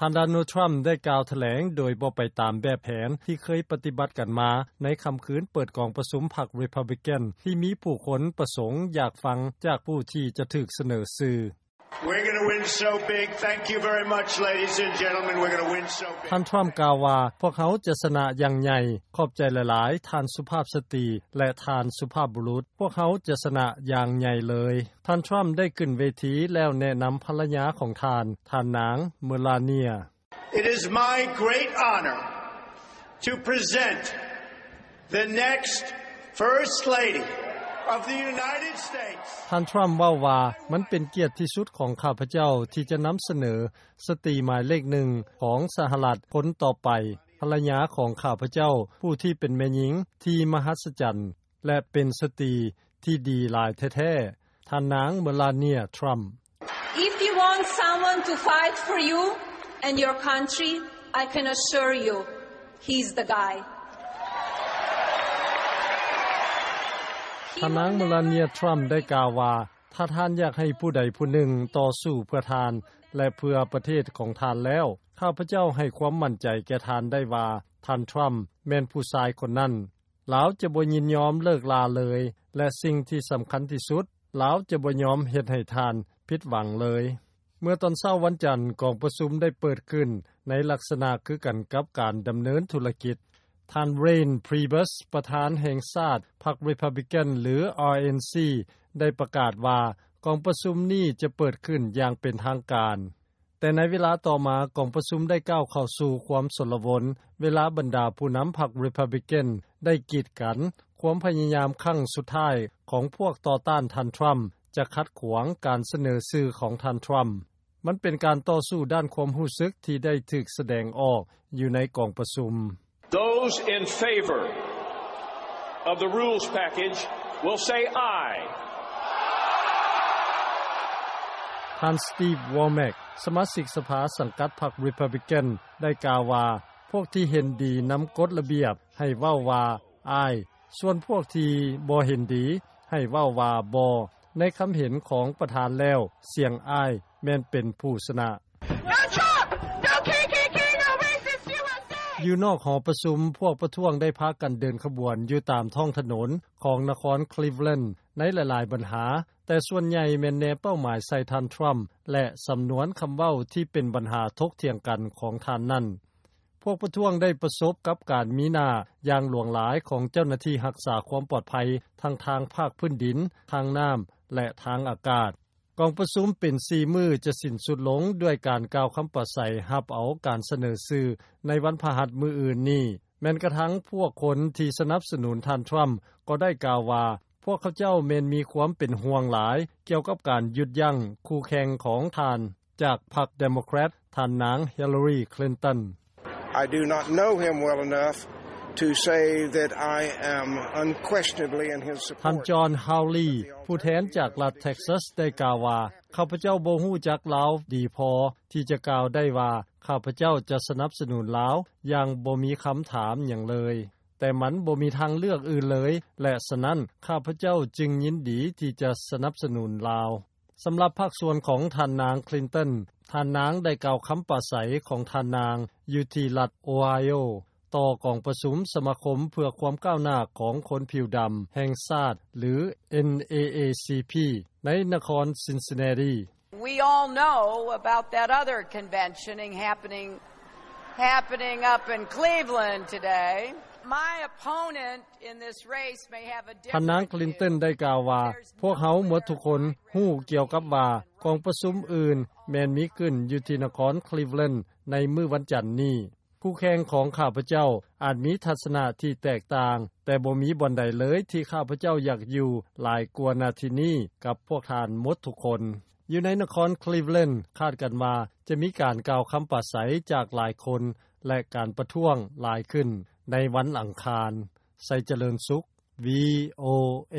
ທ່ານ ໂດນັລ ທຣຳ ໄດ້ກ່າວຖະແຫຼງໂດຍບໍ່ໄປຕາມແບບແຜນທີ່ເຄີຍປະຕິບັດກັນມາ ໃນຄ່ຳຄືນເປີດກອງປະຊຸມພັກ Republican ທີ່ມີຜູ້ຄົນປະສົງຢາກຟັງຈາກຜູ້ທີ່ຈະຖືກສະເໜີຊື່. We're gonna win so big. Thank you very much, ladies and gentlemen. We're gonna win so big. ທ່ານ ທຣຳ ກ່າວວ່າ ພວກເຮົາຈະຊະນະຢ່າງໃຫຍ່. ຂອບໃຈຫຼາຍໆ ທ່ານສຸພາບສະຕີ ແລະ ທ່ານສຸພາບບຸລຸດ. ພວກເຮົາຈະຊະນະຢ່າງໃຫຍ່ເລີຍ. ທ່ານ ທຣຳ ໄດ້ຂຶ້ນເວທີແລ້ວແນະນຳພັນລະຍາຂອງທ່ານ, ທ່ານນາງ Melania. It is my great honor to present the next First Lady of the United States. ທ່ານ ທຣຳ ເວົ້າວ່າ ມັນເປັນກຽດທີ່ສຸດຂອງຂ້າພະເຈົ້າທີ່ຈະນຳສະເໜີສະຕີໝາຍເລກໜຶ່ງຂອງສະຫະລັດຄົນຕໍ່ໄປ, ພັນລະຍາຂອງຂ້າພະເຈົ້າ ຜູ້ທີ່ເປັນແມ່ຍິງທີ່ມະຫັດສະຈັນ ແລະ ເປັນສະຕີທີ່ດີຫຼາຍແທ້ໆ, ທ່ານນາງ Melania Trump. If you want someone to fight for you and your country, I can assure you, he's the guy. ທ່ານນາງ Melania Trump ໄດ້ກ່າວວ່າ ຖ້າທ່ານຢາກໃຫ້ຜູ້ໃດຜູ້ໜຶ່ງຕໍ່ສູ້ເພື່ອທ່ານ ແລະ ເພື່ອປະເທດຂອງທ່ານແລ້ວ, ຂ້າພະເຈົ້າໃຫ້ຄວາມໝັ້ນໃຈແກ່ທ່ານໄດ້ວ່າ ທ່ານ Trump ແມ່ນຜູ້ຊາຍຄົນນັ້ນ. ລາວຈະບໍ່ຍິນຍອມເລີກລາເລີຍ ແລະ ສິ່ງທີ່ສຳຄັນທີ່ສຸດ, ລາວຈະບໍ່ຍອມເຮັດໃຫ້ທ່ານຜິດຫວັງເລີຍ. ເມື່ອຕອນເຊົ້າວັນຈັນ, ກອງປະຊຸມໄດ້ເປີດຂຶ້ນໃນລັກສະນະຄືກັນກັບການດຳເນີນທຸລະກິດ. ທ່ານ Reince Priebus ປະທານແຫ່ງຊາດພັກ Republican ຫຼື RNC ໄດ້ປະກາດວ່າ ກອງປະຊຸມນີ້ຈະເປີດຂຶ້ນຢ່າງເປັນທາງການ. ແຕ່ໃນເວລາຕໍ່ມາ, ກອງປະຊຸມໄດ້ກ້າວເຂົ້າສູ່ຄວາມຊົນລະວົນ ເວລາບັນດາຜູ້ນຳພັກ Republican ໄດ້ກີດກັນຄວາມພະຍາຍາມຄັ້ງສຸດທ້າຍຂອງພວກຕໍ່ຕ້ານທ່ານ Trump ຈະຂັດຂວາງການສະເໜີຊື່ຂອງທ່ານ Trump. ມັນເປັນການຕໍ່ສູ້ດ້ານຄວາມຮູ້ສຶກທີ່ໄດ້ຖືກສະແດງອອກຢູ່ໃນກອງປະຊຸມ. Those in favor of the rules package will say aye. ທ່ານ Steve Womack ສະມາຊິກສະພາສັງກັດພັກ Republican ໄດ້ກ່າວວ່າ ພວກທີ່ເຫັນດີນຳກົດລະບຽບໃຫ້ເວົ້າວ່າ aye, ສ່ວນພວກທີ່ບໍ່ເຫັນດີໃຫ້ເວົ້າວ່າ aye. ໃນຄຳເຫັນຂອງປະທານແລ້ວ, ສຽງ aye ແມ່ນເປັນຜູ້ຊະນະ. No Trump! No K K K! No racist U S A! ຢູ່ນອກຫໍປະຊຸມ, ພວກປະທ້ວງໄດ້ພາກັນເດີນຂະບວນຢູ່ຕາມທ້ອງຖະໜົນຂອງນະຄອນ Cleveland ໃນຫຼາຍໆບັນຫາ, ແຕ່ສ່ວນໃຫຍ່ແມ່ນແນເປົ້າໝາຍໃສ່ທ່ານ Trump ແລະ ສຳນວນຄຳເວົ້າທີ່ເປັນບັນຫາຖົກຖຽງກັນຂອງທ່ານນັ້ນ. ພວກປະທ້ວງໄດ້ປະສົບກັບການມີໜ້າຢ່າງຫຼວງຫຼາຍຂອງເຈົ້າໜ້າທີ່ຮັກສາຄວາມປອດໄພ ທັງທາງພາກພື້ນດິນ, ທາງນ້ຳ ແລະ ທາງອາກາດ. ກອງປະຊຸມເປັນສີ່ມື້ຈະສິ້ນສຸດລົງດ້ວຍການກ່າວຄຳປາໄສຮັບເອົາການສະເໜີຊື່ໃນວັນພະຫັດມື້ອື່ນນີ້. ແມ່ນກະທັ່ງພວກຄົນທີ່ສະໜັບສະໜູນທ່ານ Trump ກໍໄດ້ກ່າວວ່າ ພວກເຂົາເຈົ້າແມ່ນມີຄວາມເປັນຫ່ວງຫຼາຍກ່ຽວກັບການຢຸດຢັ້ງຄູ່ແຂ່ງຂອງທ່ານຈາກພັກ Democrat ທ່ານນາງ Hillary Clinton. I do not know him well enough to say that I am unquestionably in his support. ທ່ານ John Hawley ຜູ້ແທນຈາກລັດ Texas ໄດ້ກ່າວວ່າ ຂ້າພະເຈົ້າບໍ່ຮູ້ຈັກລາວດີພໍທີ່ຈະກ່າວໄດ້ວ່າ ຂ້າພະເຈົ້າຈະສະໜັບສະໜູນລາວຢ່າງບໍ່ມີຄຳຖາມຫຍັງເລີຍ, ແຕ່ມັນບໍ່ມີທາງເລືອກອື່ນເລີຍ ແລະ ສະນັ້ນ ຂ້າພະເຈົ້າຈຶ່ງຍິນດີທີ່ຈະສະໜັບສະໜູນລາວ. ສຳລັບພາກສ່ວນຂອງທ່ານນາງ Clinton, ທ່ານນາງໄດ້ກ່າວຄຳປາໄສຂອງທ່ານນາງຢູ່ທີ່ລັດ Ohio ຕໍ່ກອງປະຊຸມສະມາຄົມເພື່ອຄວາມກ້າວໜ້າຂອງຄົນຜິວດຳແຫ່ງຊາດ ຫຼື N double A C P ໃນນະຄອນ Cincinnati. We all know about that other convention happening, happening up in Cleveland today. My opponent in this race may have a different view. ທ່ານນາງ Clinton ໄດ້ກ່າວວ່າ ພວກເຮົາໝົດທຸກຄົນຮູ້ກ່ຽວກັບວ່າ ກອງປະຊຸມອື່ນແມ່ນມີຂຶ້ນຢູ່ທີ່ນະຄອນ Cleveland ໃນມື້ວັນຈັນນີ້. ຄູ່ແຂ່ງຂອງຂ້າພະເຈົ້າອາດມີທັດສະນະທີ່ແຕກຕ່າງ, ແຕ່ບໍ່ມີບ່ອນໃດເລີຍທີ່ຂ້າພະເຈົ້າຢາກຢູ່ຫຼາຍກວ່ານາທີນີ້ກັບພວກທ່ານໝົດທຸກຄົນ. ຢູ່ໃນນະຄອນ Cleveland ຄາດກັນວ່າຈະມີການກ່າວຄຳປາໄສຈາກຫຼາຍຄົນ ແລະ ການປະທ້ວງຫຼາຍຂຶ້ນໃນວັນອັງຄານ. ໄຊຈະເລີນສຸກ VOA.